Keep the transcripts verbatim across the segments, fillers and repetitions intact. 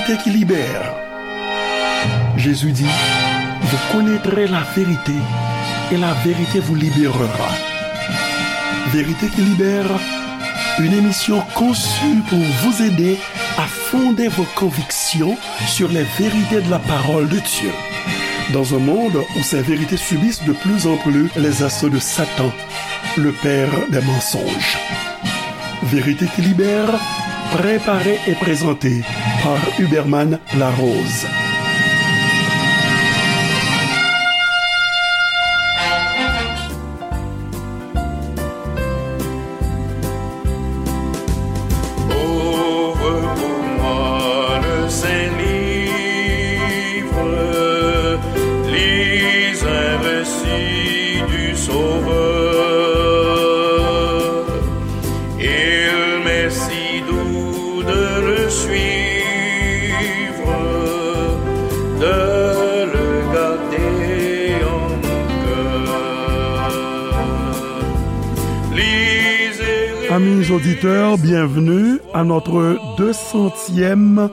Vérité qui libère. Jésus dit, vous connaîtrez la vérité et la vérité vous libérera. Vérité qui libère, une émission conçue pour vous aider à fonder vos convictions sur les vérités de la parole de Dieu. Dans un monde où ces vérités subissent de plus en plus les assauts de Satan, le père des mensonges. Vérité qui libère, préparée et présentée par Huberman Larose. Ouvre pour moi le Saint-Livre, lis un récit du Sauveur. Il m'est si doux de le suivre, de le garder en mon cœur. Lisez et Amis auditeurs, bienvenue à notre deux centième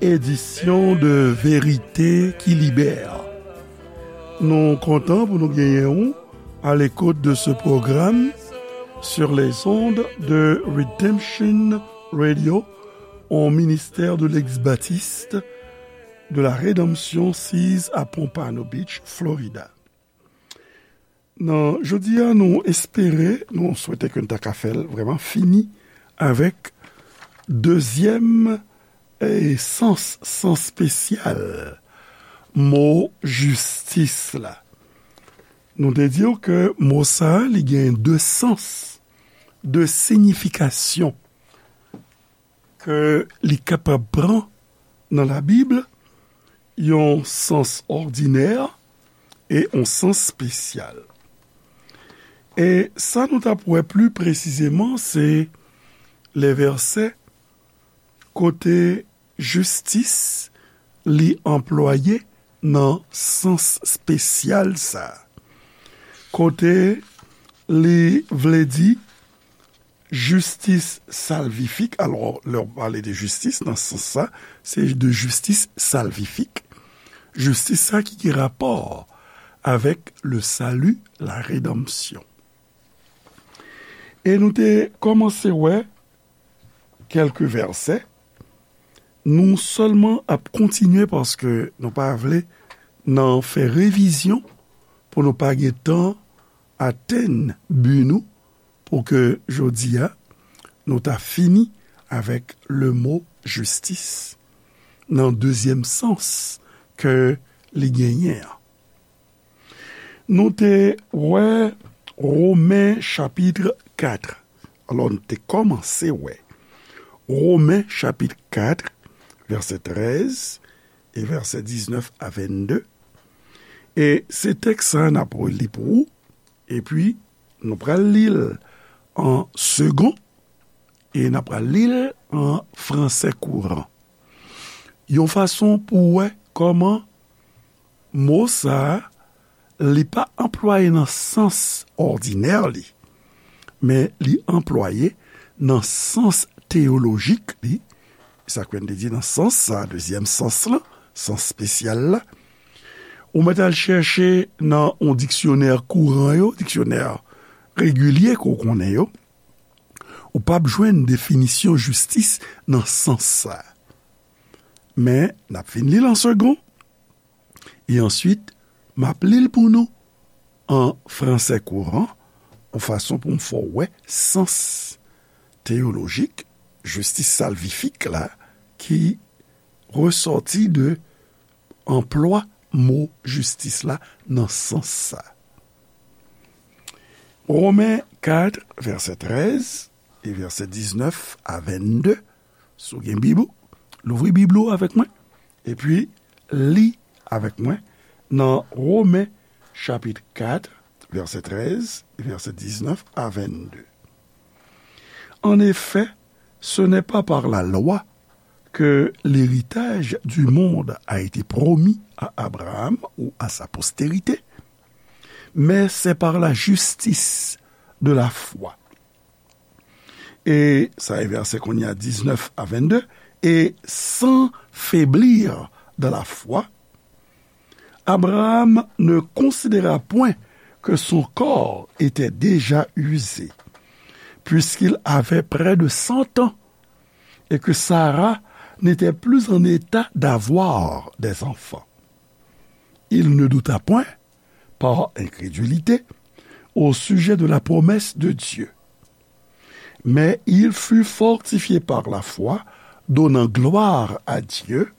édition de Vérité qui libère. Nou kontan pou nou genyen w à l'écoute de ce programme sur les ondes de Redemption Radio, un ministère de l'ex-baptiste de la Rédemption six à Pompano Beach, Florida. Nan jodi a, nou espere, nou swete ke n ta ka fè l vrèman fini avèk dezyèm, e, sans, sans espesyal mo jistis la. Nou te di w ke mo sa a, li gen de sans, de siyifikasyon ke li kapab pran nan Labib, yon sans òdinè e yon sans espesyal. E sa nou t ap wè pli presizeman, se lè vèsè kote jistis li anplwaye nan sans espesyal sa a. Kote li vle di jistis salvifik. Alò, lè w pale de jistis nan sans sa, se de jistis salvifik. Jistis sa ki gen rapò avèk le salut, la rédemption. E nou te kòmanse wè kèlke vèsè. Nou sèlman ap kontinye paske nou pa vle nan fè revizyon pou nou pa gen tan atenn bi nou, pou ke jodi a nou ta fini avèk le mo jistis nan dezyèm sans ke li genyen an. Nou te wè Women chapit kat. Alò, nou te kòmanse wè Women chapit kat, vèsè trèz e vèsè diznèf a vennde. E se tèks sa a n ap li pou ou, epi nou pral li l an segon, e n ap pral li l an fransè kouran. Yon fason pou w wè kòman mo sa a, li pa anplwaye nan sans òdinè li, men li anplwaye nan sans teyolojik li. Sa k fè n te di nan sans sa, dezyèm sans lan, sans espesyal la, ou mèt al chèche nan yon diksyonè kouran yo, diksyonè regilye ke w konnen yo, ou p ap jwenn definisyon jistis nan sans sa. Men, n ap fin li l an segon, e answit, m ap li l pou nou an fransè kouran, yon fason pou m fè w wè sans teyolojik, jistis salvifik la, ki resòti de anplwa mo jistis la nan sans sa. Women kat, vèsè trèz e vèsè diznèf a vennde. Si w gen Bib ou, louvri Bib ou avèk mwen, epi li avèk mwen nan Women chapit kat, vèsè trèz e vèsè diznèf a vennde. En effet, ce n'est pas par la loi que l'héritage du monde a été promis à Abraham ou à sa postérité, mais c'est par la justice de la foi. E sa e vèsè kounye a diznèf a vennde. Et sans faiblir dans la foi, Abraham ne considéra point que son corps était déjà usé, puisqu'il avait près de cent ans, et que Sarah n'était plus en état d'avoir des enfants. Il ne douta point, par incrédulité, au sujet de la promesse de Dieu. Mais il fut fortifié par la foi, donnant gloire à Dieu,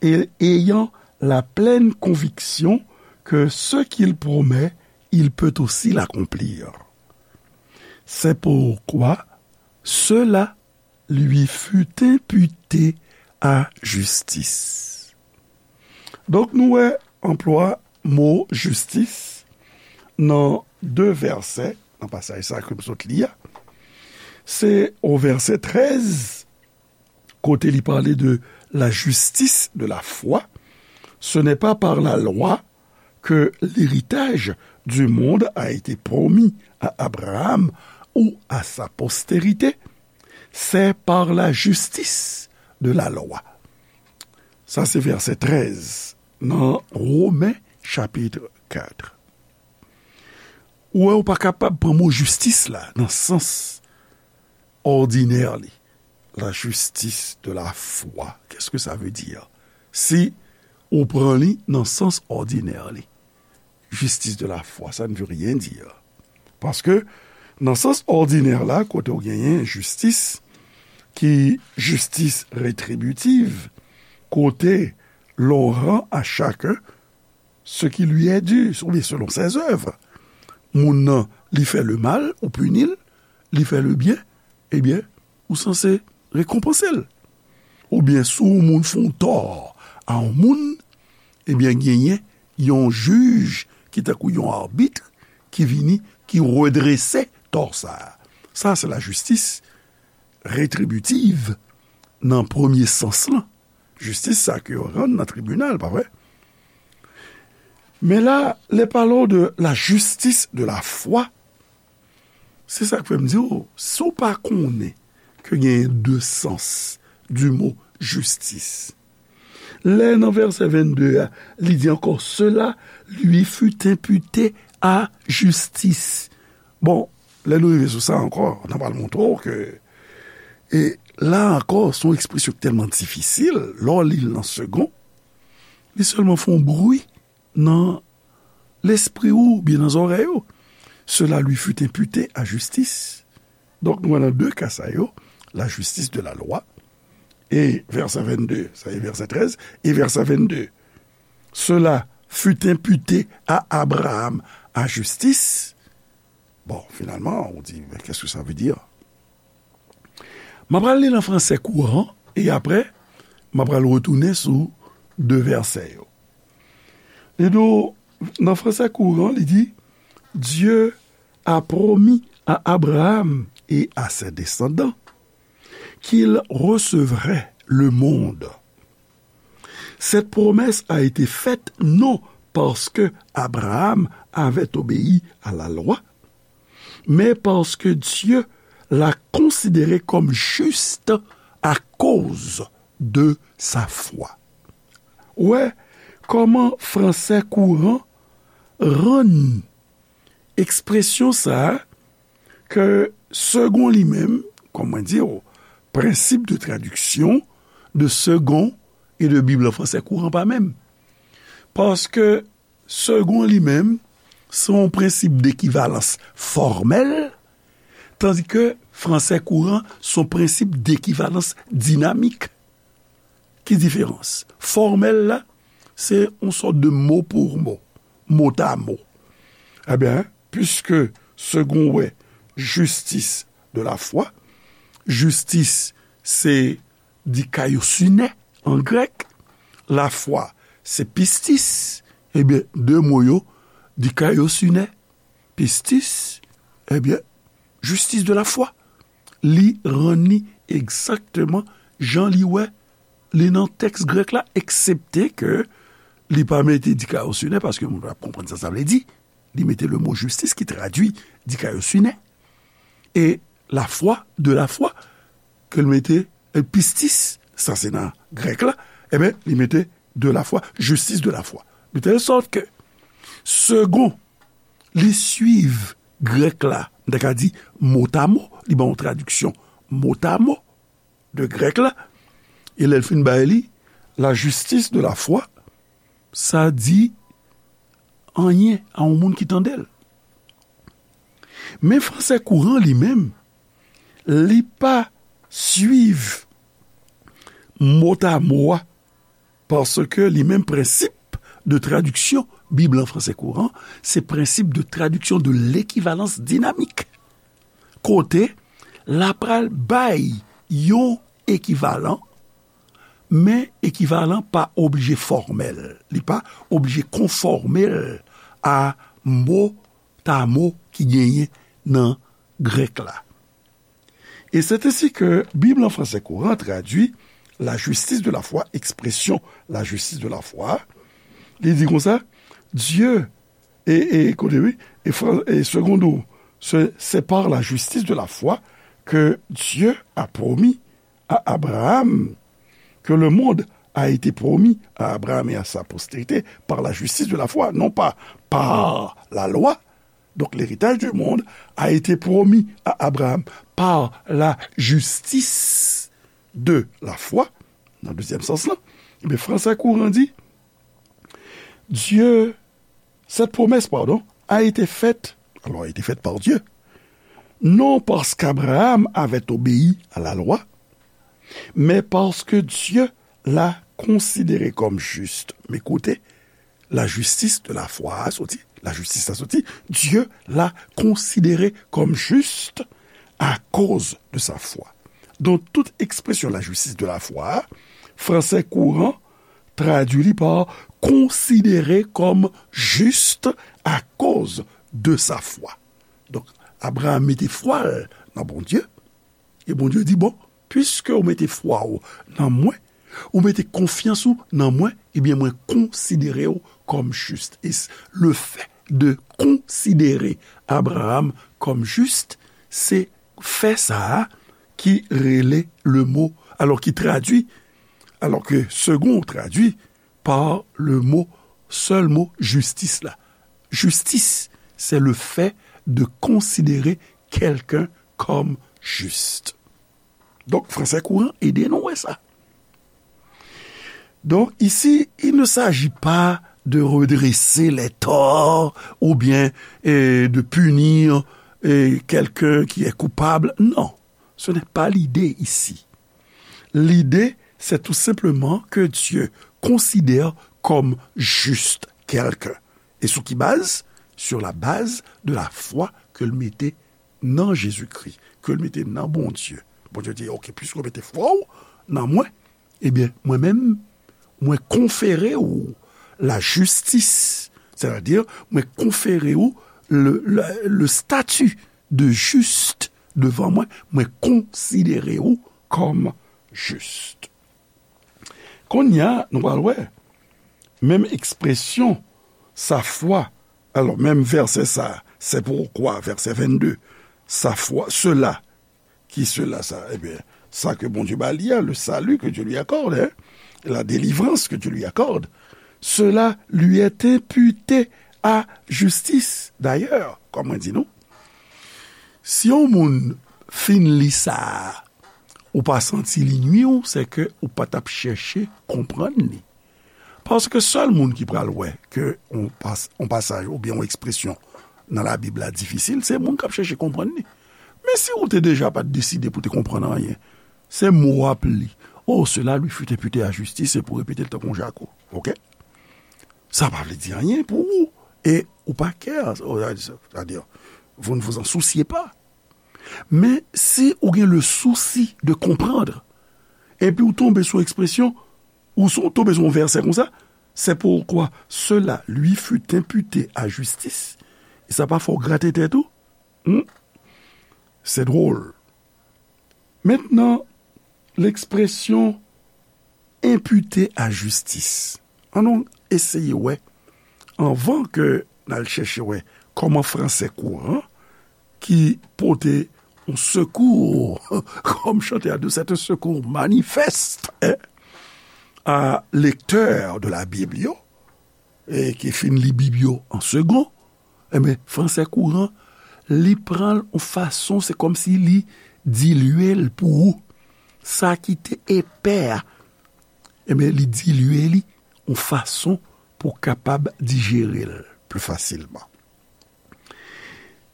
et ayant la pleine conviction que ce qu'il promet, il peut aussi l'accomplir. C'est pourquoi cela lui fut imputé à justice. Donk, nou wè anplwa mo jistis nan de vèsè, nan pasaj sa ke m sot li a. Se o vèsè trèz, kote li pale de la justice de la foi. Ce n'est pas par la loi que l'héritage du monde a été promis à Abraham ou à sa postérité, c'est par la justice de la loi. Sa se vèsè trèz nan Women chapit kat. Ou wè, ou pa kapab pran mo jistis la nan sans òdinè li. La justice de la foi. Qu'est-ce que ça veut dire? Si ou pran li nan sans òdinè li. Justice de la foi, ça ne veut rien dire. Paske, nan sans òdinè la, kote w genyen jistis, ki jistis retribitiv, kote l'on rend à chacun ce qui lui est dû, oubyen selon ses œuvres. Moun nan, li fè le mal, ou pini l, li fè le byen, ebyen, ou sanse rekonpanse l. Oubyen, si yon moun fè yon tò a yon moun, ebyen, genyen yon jij ki tankou yon abit ki vini, ki redrese tò sa a. Sa, se lajistis retribitiv nan premye sans lan. Jistis sa ke yo rann nan tribinal, pa vre? Men la, les parlons de la justice de la foi. Se sa k fè m di w, si w pa konnen ke genyen de sans du mot justice, lè nan vèsè vennde a, li di ankò, cela lui fut imputé à justice. Bon, lè nou rive sou sa ankò, n a pral montre w ke, e la ankò, se yon ekspresyon ki tèlman difisil, lè w li l nan segon, li sèlman fè yon bri nan lespri w oubyen nan zòrèy ou. Cela lui fut imputé à justice. Donk, nou wè nan de ka sa yo, la justice de la loi, e vèsè vennde, sa e vèsè trèz, e vèsè vennde, cela fut imputé à Abraham à justice. Bon, finalman, ou di, mais qu'est-ce que ça veut dire? M ap pral li l an fransè kouran, e apre, m ap pral retounen sou de vèsè yo. Li di w, nan fransè kouran, li di, Dieu a promis à Abraham et à ses descendants qu'il recevrait le monde. Cette promesse a été faite non parce que Abraham avait obéi à la loi, mais parce que Dieu l'a considéré comme juste à cause de sa foi. Ou wè kòman fransè kouran rann ekspresyon sa a ke segon li menm, kòm mwen di w, principe de traduction de second et de Bible en français courant pa menm. Paske segon li menm, se yon prensip dekivalans fòmèl, tandi ke fransè kouran se yon prensip dekivalans dinamik. Ki diferans? Fòmèl la, se yon sòt de mo pou mo, mot à mot. Ebyen, puiske segon wè justice de la foi, jistis se dikaiosune an grèk, lafwa se pistis, ebyen, de mo yo, dikaiosune, pistis, ebyen, justice de la foi. Li rann li egzakteman jan li wè li nan tèks grèk la, eksepte ke li pa mete dikaiosune, paske moun ap konprann sa sa vle di. Li mete le mo justice ki tradui dikaiosune. E lafwa, de lafwa, ke l mete, e, pistis, sa se nan grèk la, Ebyen, li mete de la foi, justice de la foi. De telle sorte que, segon, li swiv grèk la, m ta ka di motamo, li ban yon tradiksyon motamo de grèk la, e lè l fin bay li, la justice de la foi, sa di anyen a yon moun ki tande l. Men fransè kouran li menm, li pa swiv motamo a, paske li menm prensip de tradiksyon Bib lan fransè kouran, se prensip de tradiksyon de l'équivalence dynamique. Kote l ap pral bay yon ekivalan, men ekivalan pa oblije fòmèl. Li pa oblije konfòme l a motamo ki genyen nan grèk la. Et c'est ainsi que Bib lan fransè kouran tradui la justice de la foi, ekspresyon la justice de la foi. Li di konsa, Dieu, e, e, kote wi, e, fran- e seconde, c'est par la justice de la foi que Dieu a promis à Abraham, que le monde a été promis à Abraham et à sa postérité par la justice de la foi, non pas par la loi. Donc l'héritage du monde a été promis à Abraham par la justice de la foi. Nan dezyèm sans lan, ebyen, fransè kouran di, Dieu, cette promesse, pardon, a été faite, alors a été faite par Dieu, non parce qu'Abraham avait obéi à la loi, mais parce que Dieu l'a considéré comme juste. Men kote la justice de la foi a soti, la justice la soti, Dieu l'a considéré comme juste à cause de sa foi. Donk, tout ekspresyon la justice de la foi a, fransè kouran tradui li pa considéré comme juste à cause de sa foi. Donk, Abraham mete fwa l nan Bondye, e Bondye di, bon, piske ou mete fwa w nan mwen, ou mete konfyans ou nan mwen, ebyen, mwen konsidere w kòm jis. E le fait de considérer Abraham comme juste, se fè sa a ki rele le mot, alors ki tradui, alors que second tradui par le mot, sèl mo, jistis la. Justice, c'est le fait de considérer quelqu'un comme juste. Donk, fransè kouran ede nou wè sa. Donc, ici, il ne s'agit pas de redresser les torts ou bien euh, de punir euh, quelqu'un qui est coupable. Non, ce n'est pas l'idée ici. L'idée, c'est tout simplement que Dieu considère comme juste quelqu'un. Et sous qui base? Sur la base de la foi que l mete nan Jezikri, ke l mete nan Bondye. Bondye di, ok, piske w mete fwa w nan mwen, ebyen, mwen menm, mwen konfere w la jistis. Sètadi, mwen konfere w le, le, le stati de jis devan mwen, mwen konsidere w kòm jis. Kounye a, nou pral wè, menm ekspresyon, sa fwa, alò, menm vèsè sa, c'est pourquoi, vèsè vennde, sa fwa, cela, ki cela sa? Ebyen, sa ke Bondye ba li a, le salut que Dieu lui accorde, hein, la délivrance que Dieu lui accorde, cela lui est imputé à justice. D'ailleurs, kòm mwen di nou, si yon moun fin li sa a, ou pa santi li nwi w, se ke ou pa t ap chèche konprann li. Paske sèl moun ki pral wè ke yon pas- yon pasaj oubyen yon ekspresyon nan Labib la difisil, se moun k ap chèche konprann li. Men si ou te deja pa t deside pou te konprann anyen, se mo w ap li. Oh, cela lui fut imputé à justice, se pou repete l tankou yon jako. Ok? Sa pa vle di anyen pou ou. E ou pa kè, sètadi, vous ne vous en souciez pas. Men si ou gen le souci de comprendre, epi ou tonbe sou ekspresyon, ou sou, tonbe sou yon vèsè konsa, c'est pourquoi cela lui fut imputé à justice, e sa pa fè w grate tèt ou? Hmm? C'est drôle. Maintenant, l'expression imputé à justice. Ann nou eseye wè, anvan ke n al chèche wè kòman fransè kouran ki pote yon sekou, kòm chantè a di, c'est un secours manifeste, hein? a lektè de la Bib yo, e ki fin li Bib yo an segon, enben, fransè kouran, li pran l yon fason, se kòmsi li dilye l pou ou. Sa ki te epè a, enben, li dilye li yon fason pou w kapab dijere l pli fasilman.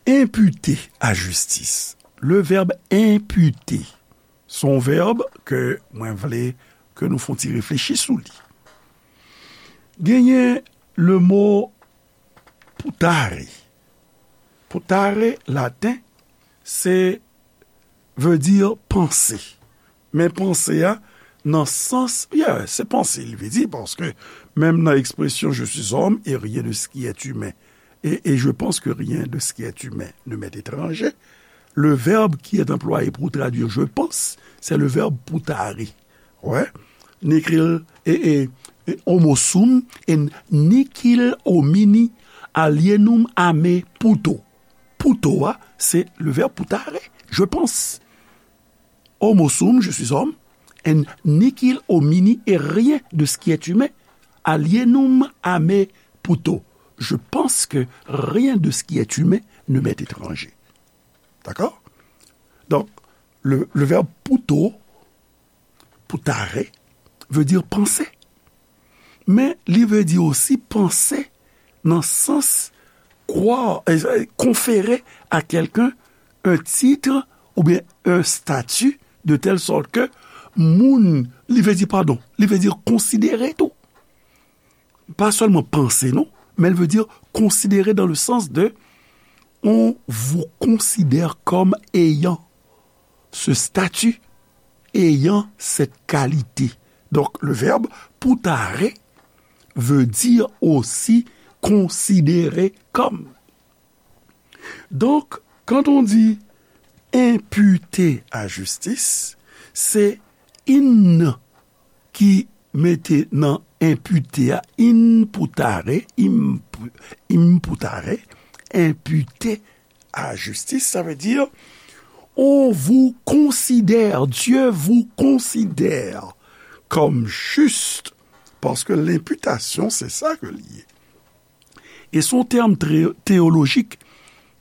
Imputer à justice. Le verbe imputer, se yon vèb ke mwen vle ke nou fè yon ti reflechi sou li. Genyen le mo putare. Putare, laten, se veut dire penser. Men panse a, nan sans, yeah, se panse li vle di, paske menm nan ekspresyon je suis homme et rien de ce qui est humain, et, et je pense que rien de ce qui est humain ne m'est étranger, le verbe qui est employé pour traduire je pense, c'est le verbe putare. Ouais. Nicil, et, et, et homo sum, et nicil homini alienum a me puto. Puto a, se le verbe putare, je pense. Homo sum, je suis homme, et nicil homini, et rien de ce qui est humain, alienum a me puto. Je pense que rien de ce qui est humain ne m'est étranger. D'accord? Donc, le, le verbe puto, putare, veut dire penser. Men li vle di osi panse nan sans croire, euh, conférer à quelqu'un un titre ou bien un statut de telle sorte que moun, li vle di, padon, li vle di konsidere tou. Pa sèlman panse, non, men li vle di konsidere dans le sens de on vous considère comme ayant ce statut, ayant cette qualité. Donc, le verbe putare veut dire aussi considérer comme. Donc, quand on dit imputer à justice, se in ki mete nan impute a, imputare, imp-, imputare, imputer à justice, ça veut dire on vous considère, Dieu vous considère comme juste, parce que l'imputation, c'est ça que li ye. E se yon tèm trè teyolojik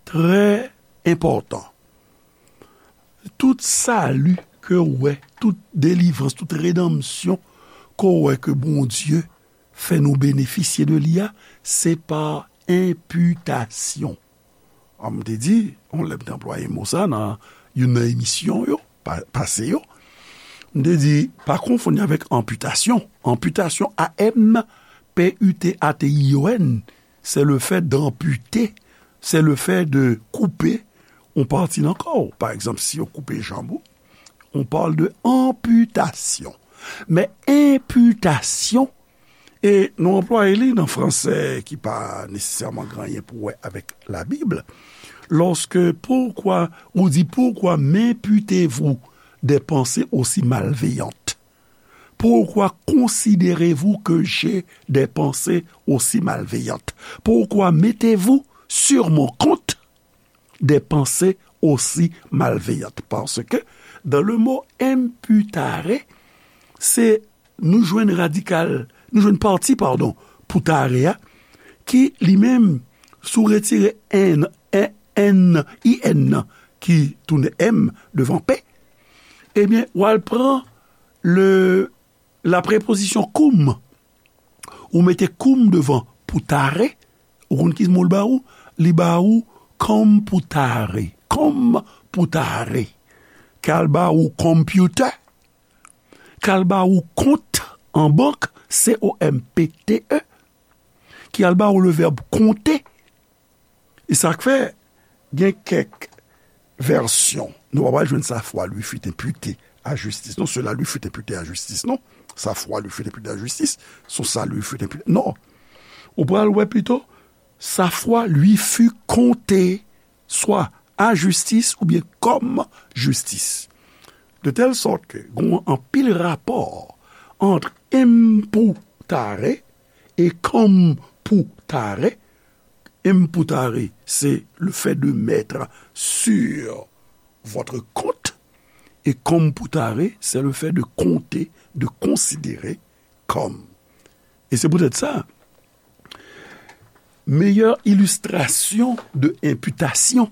trè enpòtan. Tout sali ke w wè, tout delivrans, tout redanmsyon ke w wè ke Bondye fè nou benefisye de li a, se pa enpitasyon. An, m te di, yon lè m te anplwaye mo sa nan youn nan emisyon yo, pa-, pase yo. M te di, pa konfonn li avèk anpitasyon. Anpitasyon, A M P U T A T I O N, c'est le fait d'amputer, c'est le fait de couper yon pati nan kò w. Pa egzanp, si yo koupe janm ou, on parle de amputation. Men enpitasyon, e nou anplwaye li nan fransè ki pa nesesèman gen anyen pou wè avèk Labib, lorsque, pourquoi, ou di, pourquoi m'imputez-vous des pensées aussi malveillantes? Pourquoi considérez-vous que j'ai des pensées aussi malveillantes? Pourquoi mettez-vous sur mon compte des pensées aussi malveillantes? Parce que dans le mot imputare, se nou jwenn radikal, nou jwenn pati, padon, putare a, ki li menm, si w retire N, N, N, I N nan, ki tounen M devan P, ebyen, w al pran le, la preposition cum. Ou mete cum devan putare, ou konn ki mo l ba ou? Li ba ou computare. Computare. K al ba ou computer. K al ba ou kont an bank, C O M P T E. Ki al ba ou le verbe compter. E sa k fè, gen kèk vèsyon, nou pa pral jwenn sa foi lui fut imputé à justice. Non, cela lui fut imputé à justice. Non, sa foi lui fut imputé à justice, son salut fut imputé. Non. Ou pral wè pito, sa foi lui fut compté, swa a jistis oubyen kòm jistis. De tèl sòt ke gen anpil rapò ant imputare e computare. Imputare, c'est le fait de mettre sur votre compte, et computare, c'est le fait de compter, de considérer com. E se poutèt sa, meyè ilistrasyon de enpitasyon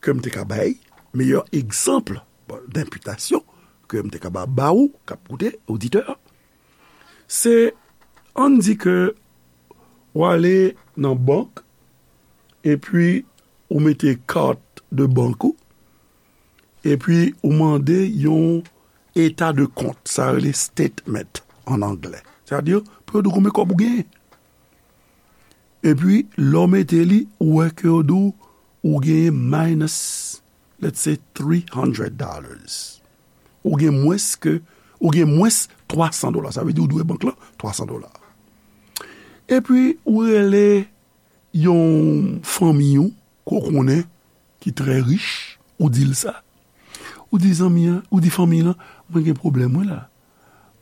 ke m te ka bay, meyè egzanp denpitasyon ke m te ka ba, ba ou k ap koute, oditè, se, ann di ke w ale nan bank, epi ou mete kat de bank ou, epi ou mande yon eta de kont, sa rele statement an anglè. Sètadi, pou yo di w konbyen kòb ou genyen. Epi, lè w mete li, ou wè ke yo di w, ou genyen minus, let's say, three hundred dollars. Ou gen mwens ke, ou gen mwens twa san dola. Sa vle di ou dwe bank lan twa san dola. Epi, ou rele yon fanmi ou ke w konnen ki trè rich, ou di l sa. Ou di zanmi an, ou di fanmi lan, mwen gen pwoblèm, wi, la.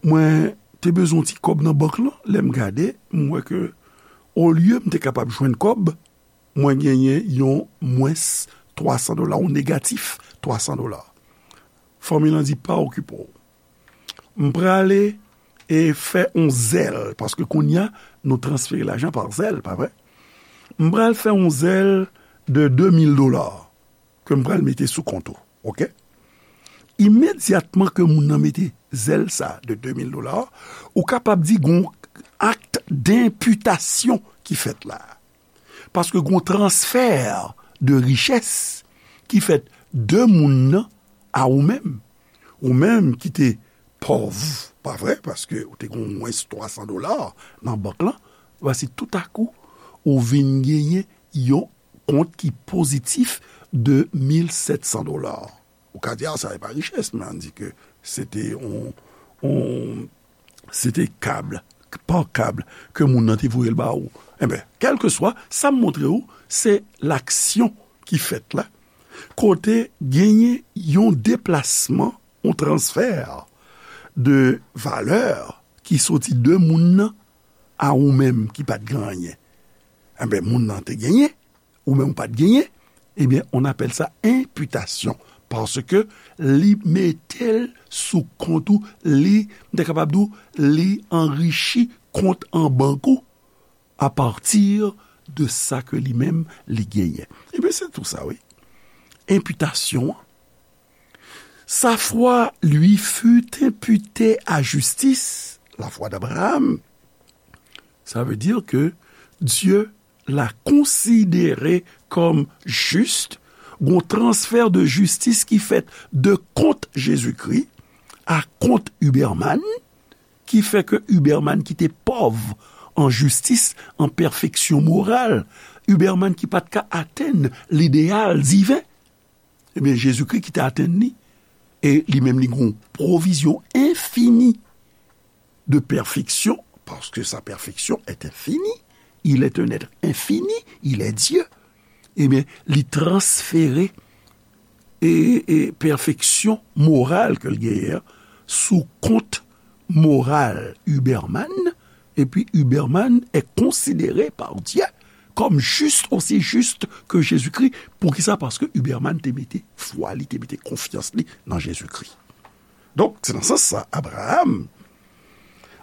Mwen te bezwen yon ti kòb nan bank lan, lè m gade, m wè ke olye m te kapab jwenn kòb, mwen genyen yon mwens twa san dola, yon negatif twa san dola. Fanmi lan di, pa okipe w. M prale e fè yon Zelle, paske kounye a, nou transfere lajan pa Zelle, pa vre? M pral fè yon Zelle de de mil dola ke m pral mete sou kont ou, oke? Imedyatman ke moun nan mete Zelle sa de de mil dola, ou kapab di gon akt denpitasyon ki fèt la. Paske gon transfè de richès ki fèt de moun nan a ou menm. Ou menm ki te pòv, pa vre? Paske ou te gon mwens twa san dola nan bank lan. Vwasi toutakou, ou vin genyen yon kont ki pozitif de mil sèt san dola. Ou ka di, a, sa e pa richès, men ann di ke se te yon, yon, se te kab, pa kab, ke moun nan te voye l ba ou. Enben, kèlkeswa, sa m montre ou, se laksyon ki fèt la, kote genyen yon deplasman, yon transfè de valè ki soti de moun nan a ou menm ki pa t gen anyen. Enben, moun nan te genyen, ou menm ou pa t genyen, ebyen, on appelle ça imputation, paske li mete l sou kont ou, li, m te kapab di w, li anrichi kont an bank ou apati de sa ke li menm li genyen. Ebyen, se tou sa, wi. Enpitasyon an. Sa foi lui fut imputée à justice, la foi d'Abraham. Ça veut dire que Dieu l'a considéré comme juste, gon transfè de jistis ki fèt de kont Jezikri a kont Huberman, ki fè ke Huberman ki te pòv an jistis, an pèfeksyon moral, Huberman ki pa t ka atenn lideyal diven, ebyen, Jezikri ki te atenn li, e li menm li gon pwovizyon enfini de perfection, parce que sa perfection est infinie, il est un être infini, il est Dieu, ebyen, li transfere e, e pèfeksyon moral ke l genyen an sou kont moral Huberman, epi Huberman est considéré par Dieu comme juste, aussi juste que Jésus-Christ. Poukisa? Paske Huberman te mete fwa li, te mete konfyans li nan Jezikri. Donk, se nan sans sa, Abraham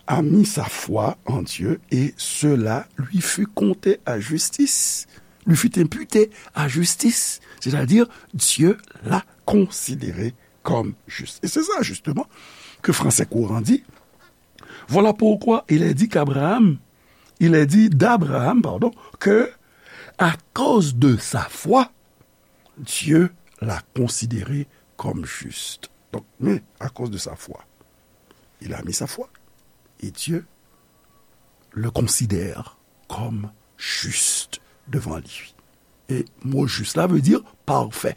a mis sa foi en Dieu et cela lui fut compté à justice. Lui fut imputé à justice. C'est-à-dire, Dieu l'a considéré comme juste. Et c'est ça, justement, que Français Courant dit. Voilà pourquoi il est dit qu'Abraham, il est dit d'Abraham, pardon, que à cause de sa foi, Dieu l'a considéré comme juste. Donc, mais à cause de sa foi, il a mis sa foi. Et Dieu le considère comme juste devant lui. E mo jis la vle di pafè.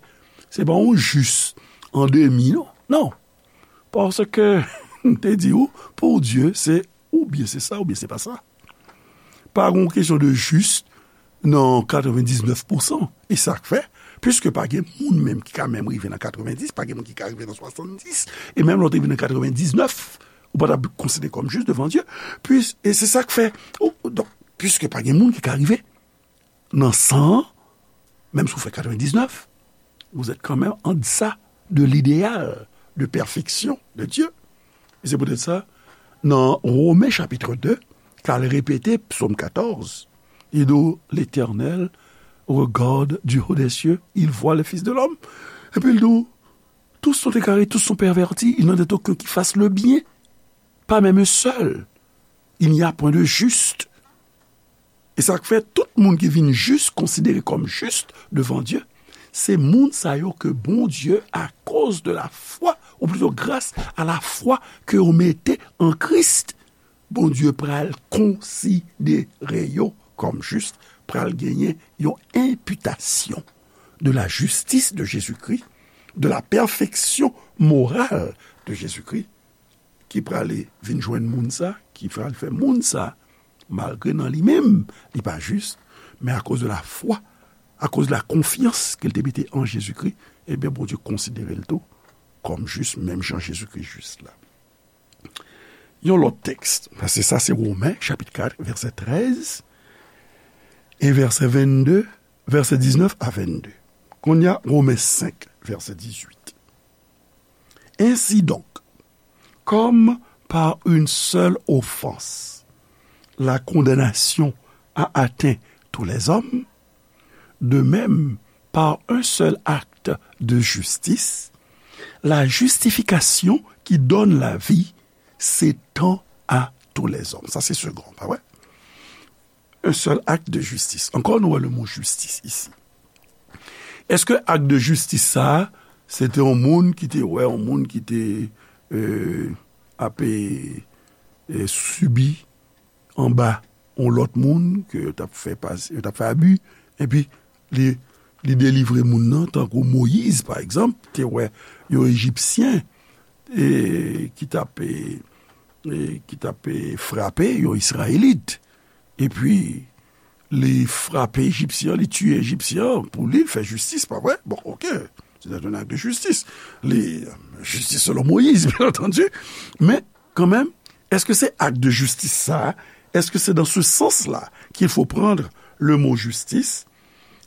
Se pa yon jis an demi, non. Non. Paske, m te di ou, pou Dye, se oubyen se sa, oubyen se pa sa. Pa gen yon kesyon de jis nan katrevendiznèf pousan. E sa k fè, piske pa gen moun menm ki ka menm rive nan katrevendis, pa gen moun ki ka rive nan swasanndis, e menm lè w te rive nan katrevendiznèf, ou pa t ap konsidere kòm jis devan Dye. Pis, e se sa k fè, ou, donk, piske pa gen moun ki ka rive nan san an, menm si w fè katrevendiznèf, vous êtes quand même en deçà de l'idéal de perfection de Dieu. E se poutèt sa, Nan Women chapit de, k al repete Psòm katòz, li di w, L'Éternel regarde du haut des cieux, il voit le Fils de l'homme. Epi l di w, tous sont égarés, tous sont pervertis, il n'en est aucun qui fasse le bien, pas même un seul. Il n'y a point de juste. E sa k fè tout moun ki vin jis konsidere kòm jis devan Dye, se moun sa yo ke Bondye, akoz de la fwa, ou plito gras a la fwa ke yo mete an Kris, Bondye pral konsidere yo kòm jis, pral genyen yon enpitasyon de la justice de Jésus-Christ, de la perfection morale de Jésus-Christ, ki prale vin jwenn moun sa, ki pral fè moun sa, malgre nan li menm, li pa jis, men akoz de la fwa, akoz de la konfyans ke l te mete an Jezikri, ebyen, Bondye konsidere l tou kòm jis, menm jan Jezikri jis la. Yon lòt tèks, paske sa se Women, chapit kat, vèsè trèz, e vèsè vennde, vèsè diznèf a vennde. Kounye a, Women senk, vèsè dizuit. Ainsi donc, comme par une seule offense, la condamnation a atteint tous les hommes, de même, par un seul acte de justice, la justification qui donne la vie s'étend à tous les hommes. Sa se segon, pa vre? Un seul acte de justice. Ankò, nou wè le mo jistis isi. Èske ak de jistis sa a, se te yon moun ki te wè, yon moun ki te, euh, ap, euh, sibi anba yon lòt moun ke yo t ap fè pas-, yo t ap fè abi, epi li, li delivre moun nan, tankou Moyiz, pa egzanp, te wè yon Ejipsyen, e, ki t ap, e, e, ki t ap, e, frape yon Izrayelit. Epi, li frape Ejipsyen an, li tiye Ejipsyen an, pou li, l fè jistis, pa vre? Bon, oke. Se te yon ak de jistis. Li, jistis selon Moyiz, byen antandi. Men, kanmenm, èske se ak de jistis sa a, èske se dans ce sens-là qu'il faut prendre le mot justice?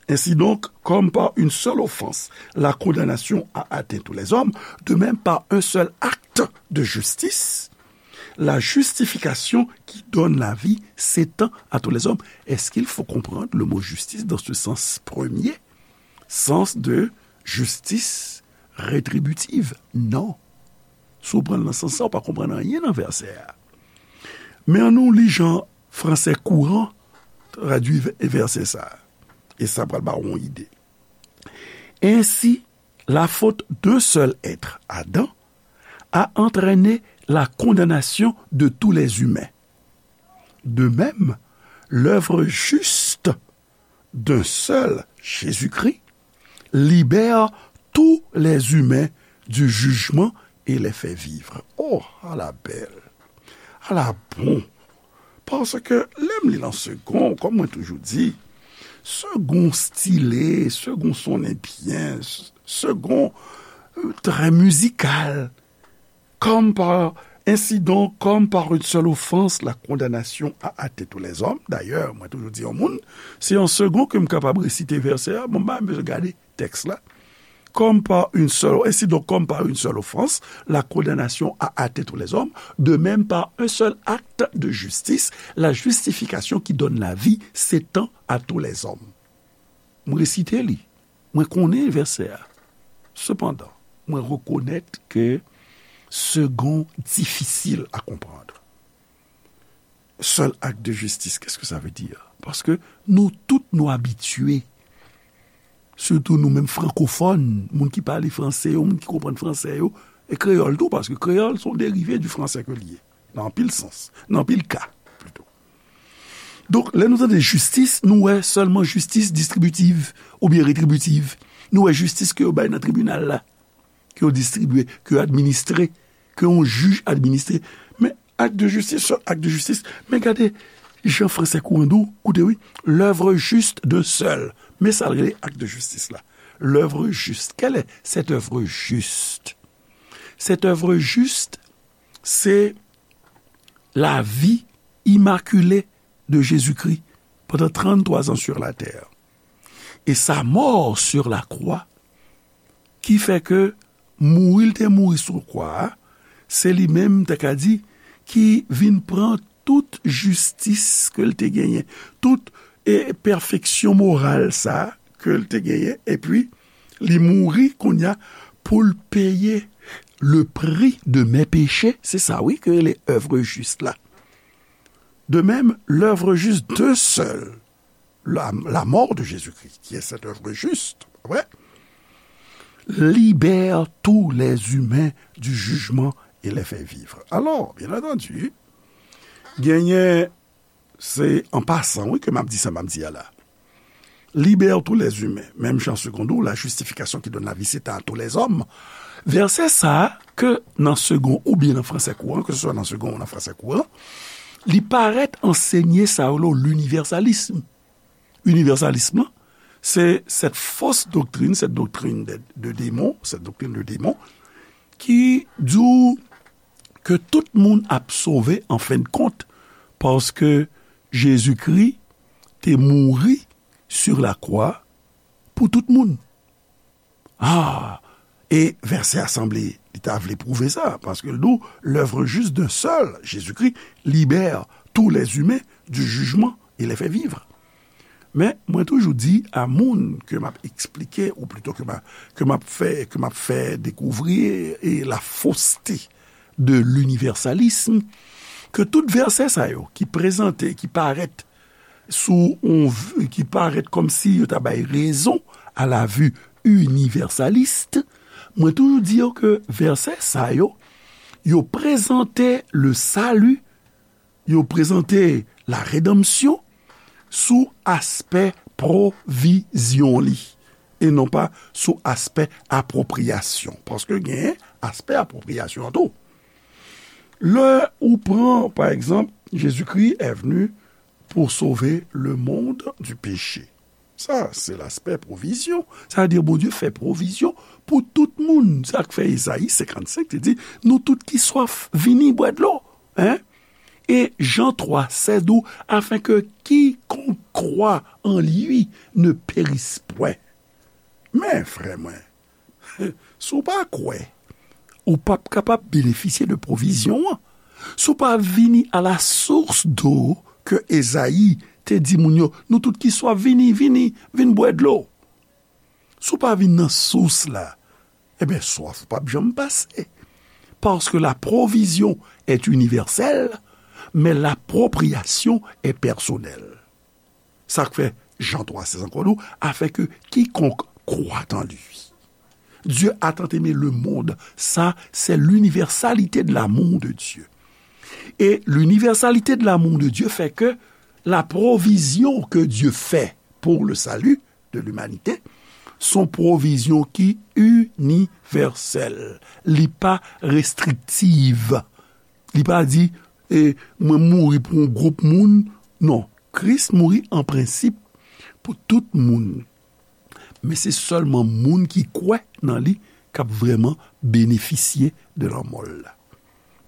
Ainsi donc, comme par une seule offense, la condamnation a atteint tous les hommes, de même par un seul acte de justice, la justification qui donne la vie s'étend à tous les hommes. Est-ce qu'il faut comprendre le mot justice dans ce sens premier, sens de justice rétributive? Non. Si w pran l nan sans sa, w pa konprann anyen nan vèsè a. Men ann nou li jan fransè kouran tradui vè-, vèsè sa a. E sa pral ba w yon ide. Ainsi, la faute d'un seul être, Adam, a entraîné la condamnation de tous les humains. De même, l'œuvre juste d'un seul, Jésus-Christ, libère tous les humains du jugement et les fait vivre. Oh, ala bèl! Ala bon! Paske lè m li l an segon, kòm mwen toujou di, segon stile, segon sonnen byen, s-, segon, euh, trè mizikal. Comme par, ainsi donc, comme par une seule offense, la condamnation a atteint tous les hommes. Dayè, mwen toujou di yon moun, se an segon ke m kapab resite vèsè a, bon, m pa bezwen gade tèks la. Comme par une seule, ainsi donc, comme par une seule offense, la condamnation a atteint tous les hommes, de même par un seul acte de justice, la justification qui donne la vie s'étend à tous les hommes. M resite li. Mwen konnen vèsè a. Sepandan, mwen rekonèt ke segon difisil a konprann. Seul acte de justice, qu'est-ce que ça veut dire? Paske nou tout nou abitye, sitou nou menm frankofòn, moun ki pale franse yo, moun ki konprann franse yo, e kreyòl tou, paske kreyòl se yon derive di franse ke li ye, nan anpil sans, nan anpil ka, plito. Donk, lè nou tande jistis, nou wè sèlman jistis distribitiv oubyen retribitiv. Nou wè jistis ke yo bay nan tribinal la, ke yo distribye, ke yo administre, ke yon jij administre. Men ak de jistis, sèl ak de jistis. Men gade jan fransè kouran di w, koute wi, l'œuvre juste d'un seul. Men sa l rele ak de jistis la. L'œuvre juste. Quelle est cette œuvre juste? Cette œuvre juste, c'est la vie immaculée de Jésus-Christ pendant trente-trois ans sur la terre. Et sa mort sur la croix, ki fè ke mouri l te mouri sou kwa a, se li menm, m ta ka di, ki vin pran tout jistis ke l te genyen, tout, e, pèfeksyon moral sa ke l te genyen, epi li mouri kounye a pou l peye le prix de mes péchés. Se sa, wi, ke le œuvre juste la. De même, l'œuvre juste d'un seul, la, la mort de Jésus-Christ, qui est cette œuvre juste, pa vre, libère tous les humains du jugement et les fait vivre. Alors, bien entendu, genyen, se an pasan, wi, ke m ap di sa m ap di a la. Libère tous les humains, même jan seconde ou la justification qui donne la vie, c'est à tous les hommes. Vèsè sa a, ke nan segon oubyen nan fransè kouran, ke se swa nan segon ou nan fransè kouran, li parèt ansenye sa yo, linivèsalism. Linivèsalism lan, se cette fausse doctrine, cette doctrine de, de démon, cette doctrine de démon, ki di w ke tout moun ap sove an fen de kont, paske Jezikri te mouri sur la croix pou tout moun. Ah, e vèsè a sanble li ta vle pwouve sa, paske l di w, l'œuvre juste d'un seul, Jésus-Christ, libère tous les humains du jugement et les fait vivre. Men, mwen toujou di a moun ke m ap eksplike, ou plito ke m a, ke m ap fè, ke m ap fè dekouvri, e, la fausseté de l'universalisme, ke tout vèsè sa yo ki prezante, ki parèt sou yon v-, ki parèt kòmsi yo ta bay rezon à la vue universaliste, mwen toujou di yo ke vèsè sa yo, yo prezante le salut, yo prezante la rédemption sou aspè pwovizyon li, e non pa sou aspè apwopriyasyon. Paske gen aspè apwopriyasyon an tou. Lè ou pran, pa egzanp, Jésus-Christ est venu pour sauver le monde du péché. Sa, se laspè pwovizyon. Sa vle di Bondye fè pwovizyon pou tout moun. Sa k fè Ezayi senkannsenk te di, nou tout ki swaf, vini bwè dlo. Hein? E Jan twa sèz di w, afin que quiconque croit en lui ne périsse point. Men, frè mwen, si w pa kwè, ou p ap kapab benefisye de pwovizyon an. Si w pa vini à la source d'eau ke Ezayi te di moun yo, nou tout ki swaf, vini, vini, vin bwè dlo. Si w pa vin nan sous la, ebyen, swaf ou p ap janm pase. Parce que la provision est universelle, mais l'appropriation est personnelle. Sa k fè Jan twa sèz ankò di w, afin que quiconque croit en lui. Dieu a tant aimé le monde. Ça, c'est l'universalité de l'amour de Dieu. Et l'universalité de l'amour de Dieu fait que la provision que Dieu fait pour le salut de l'humanité, se yon pwovizyon ki inivèsèl. Li pa restriktiv. Li pa di, e, mwen mouri pou yon gwoup moun. Non, Kris mouri an prensip pou tout moun. Men se sèlman moun ki kwè nan li k ap vrèman benefisye de lanmò l la.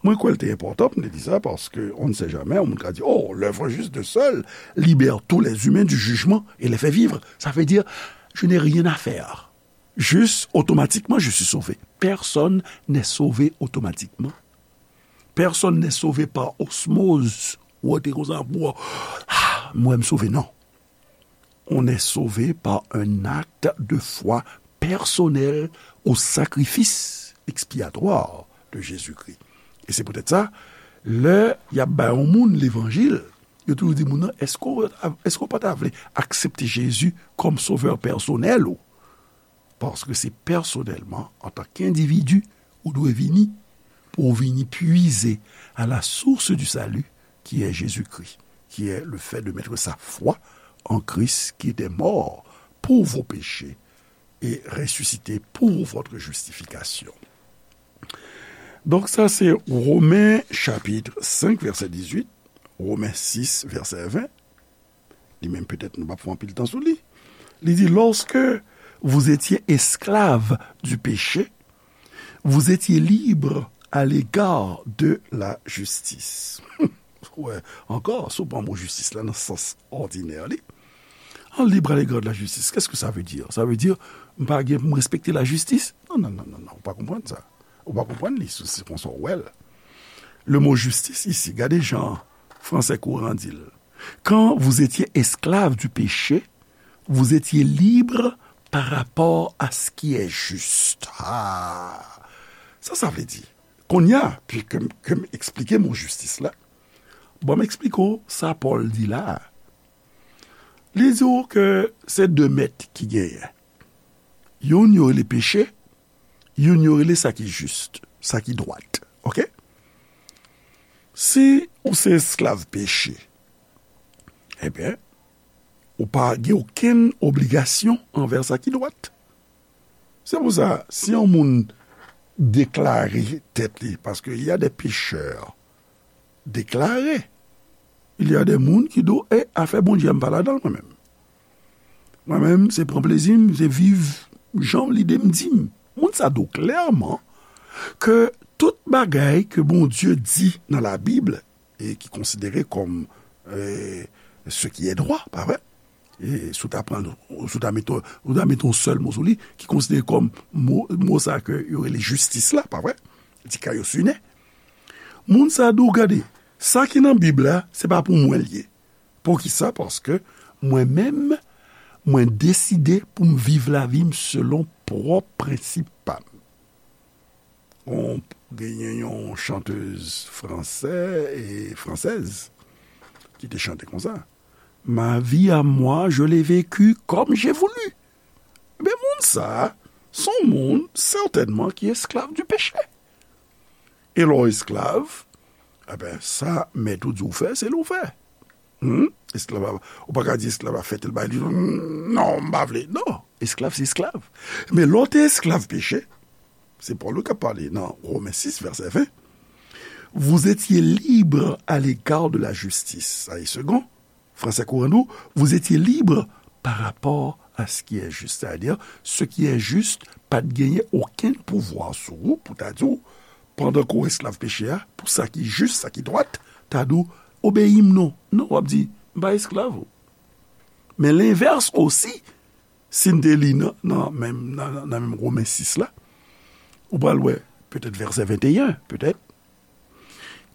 Mwen kwè l te enpòtan pou m te di sa, paske on ne sait jamais, yon moun ka di, oh, l'œuvre juste d'un seul libère tous les humains du jugement et les fait vivre. Ça veut dire, je n'ai rien à faire. Juste, automatiquement, je suis sauvé. Personne n'est sauvé automatiquement. Personne n'est sauvé par osmose. Ou te konsa, ah, mwen m sove, non. On est sauvé par un acte de foi personnel au sacrifice expiatoire de Jésus-Christ. Et c'est peut-être ça, lè y ap bay yon moun levanjil, yo toujou di moun nan, èske w, èske w pa ta vle aksepte Jezi kòm sovè pèsonèl ou? Paske se pèsonèlman, antanke endividi, ou dwe vini, pou w vini puiser à la source du salut, qui est Jésus-Christ, qui est le fait de mettre sa foi en Christ qui était mort pour vos péchés et ressuscité pour votre justification. Donk sa se Women chapit senk vèsè dizuit, Women sis vèsè ven. Li menm petèt nou p ap fè anpil tan sou li. Li di, lorsque vous étiez esclaves du péché, vous étiez libres à l'égard de la justice. Wè, ankò, si w pran mo jistis la nan sans òdinè li. An libre à l'égard de la justice, qu'est-ce que ça veut dire? Ça veut dire, m pa gen pou m respekte lajistis? Non, non, non, non, non, ou pa konprann sa. Ou pa konprann li, se, se konsa w wè l. Le mot justice ici, gade jan fransè kouran di l. Quand vous étiez esclave du péché, vous étiez libre par rapport à ce qui est juste. Ah, sa sa vle di? Kounye a, pi ke m, ke m eksplike mo jistis la, bon, m eksplike w sa Pòl di la a. Li di w ke se de mèt ki genyen. Youn yo rele peche, youn yo rele sa ki jis, sa ki dwat. Oke? Si ou se esklav peche, ebyen, ou pa gen okenn obligasyon anvè sa ki dwat. Se pou sa, si yon moun deklare tèt li, paske y a de pechè deklare, il y a de moun ki di w, e afè Bondye a m pa ladan l mwen menm. Mwen menm, se pran plezi m, se viv jan lide m di m. Moun sa di w klèman ke tout bagay ke Bondye di nan Labib, e ki konsidere kòm, e, ce qui est droit, pa vre? E si w ta pran, si w ta mete, w ta mete yon sèl mo sou li, ki konsidere kòm mo, mo sa ke yo rele jistis la, pa vre? Dikaiosune. Moun sa di w, gade, sa ki nan Bib la, se pa pou mwen l ye. Poukisa? Paske mwen menm, mwen deside pou m viv lavi m selon pwòp prensip pa m. Yon, genyen yon chantez fransè e fransèz ki te chante konsa, Ma vie à moi, je l'ai vécue comme j'ai voulu. Men moun sa, se yon moun sètènman ki esklav di peche. E lè w esklav, eben, sa mèt ou di w fè, se li w fè. Hmm? Esklav a, ou pa ka di esklav a fè tèl bagay, li di, "Non, m pa vle." Non, esklav se esklav. Men lè w te esklav peche, se Pòl wi k ap pale nan Women sis, vèsè ven. Vous étiez libre à l'égard de la justice. Sa e segon. Fransè kouran di w, vous étiez libre par rapport à ce qui est juste. Sa vle di, ce qui est juste, pa t genyen okenn pouvwa sou ou pou ta di w, pandan ke w esklav peche a, pou sa ki jis, sa ki dwat, ta di w, obeyi m non. Non, w ap di, m pa esklav ou. Men lenvès osi, si n te li nan, nan menm, nan, nan menm Women sis la, ou pral wè, petèt vèsè venteyen, petèt,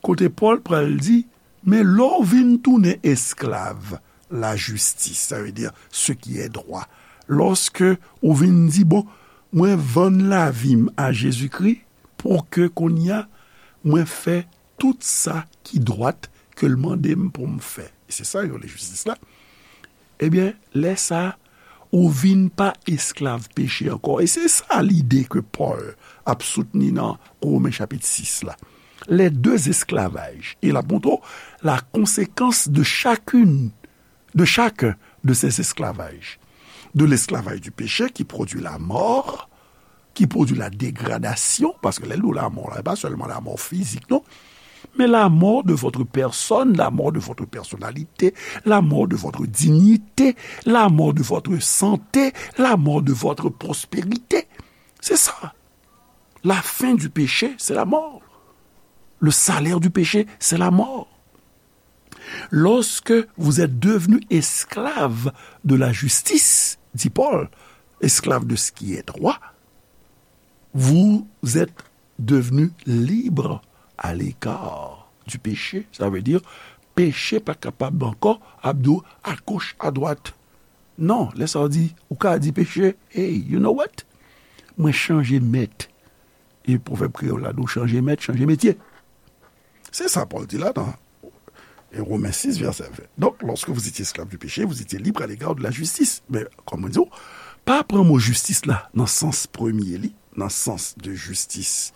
kote Pòl pral di, men lè w vin tounen esklav lajistis, sa vle di, ce qui est droit, lòske ou vin di, bon, mwen vann lavi m a Jezikri pou ke kounye a, mwen fè tout sa ki dwat ke l mande m pou m fè. E se sa yo rele jistis la. Ebyen, lè sa a, ou vin pa esklav peche ankò. E se sa lide ke Pòl ap soutni nan Women chapit sis la. Les deux esclavages. E l ap montre w la conséquence de chacune, de chacun de ces esclavages. De l'esclavage du péché qui produit la mort, qui produit la dégradation, paske lè l di w lanmò la, e pa sèlman lanmò fizik, non, mais la mort de votre personne, la mort de votre personnalité, la mort de votre dignité, la mort de votre santé, la mort de votre prospérité. C'est ça. La fin du péché, c'est la mort. Le salaire du péché, c'est la mort. Lorsque vous êtes devenu esclave de la justice, dit Paul, esclave de ce qui est droit, vous êtes devenu libre à l'égard du péché. Sa vle di, peche pa kapab ankò ap di w à gauche, à droite. Non, lè sa w di, ou ka di peche, hey, you know what? Mwen chanje mèt. E pwovèb kreyòl la di w chanje mèt, chanje metye. Se sa Pòl di la nan, e, Women sis, vèsè ven. Donk, lorsque vous étiez esclave du péché, vous étiez libre à l'égard de la justice. Men, kòm mwen di w, pa pran mo jistis la nan sans premye li, nan sans de justice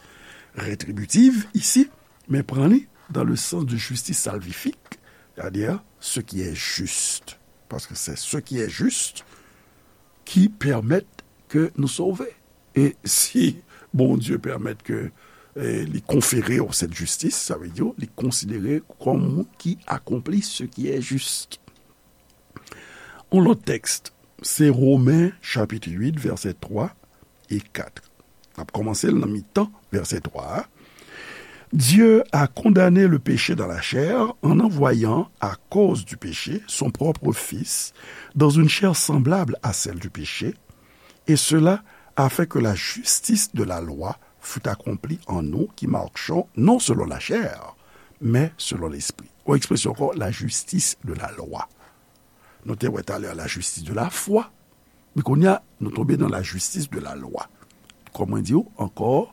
rétributive isi, men pran li dans le sens de justice salvifique, c'est-à-dire ce qui est juste. Paske se ce qui est juste ki pèmèt ke nou sove. E si Bondye pèmèt ke, e, li konfere w cette justice, sa vle di, li konsidere w kòm moun ki akonpli ce qui est juste. Yon lòt tèks, se Women chapit uit, vèsè twa e kat. N ap kòmanse l nan mitan vèsè twa a. Dieu a condamné le péché dans la chair en envoyant, à cause du péché, son propre Fils dans une chair semblable à celle du péché, et cela afin que la justice de la loi fût accomplie en nous qui marchons non selon la chair, mais selon l'esprit. Yon ekspresyon ankò, la justice de la loi. Nou te wè talè la justice de la foi, men kounye a, nou tonbe nan la justice de la loi. Kòm mwen di w ankò,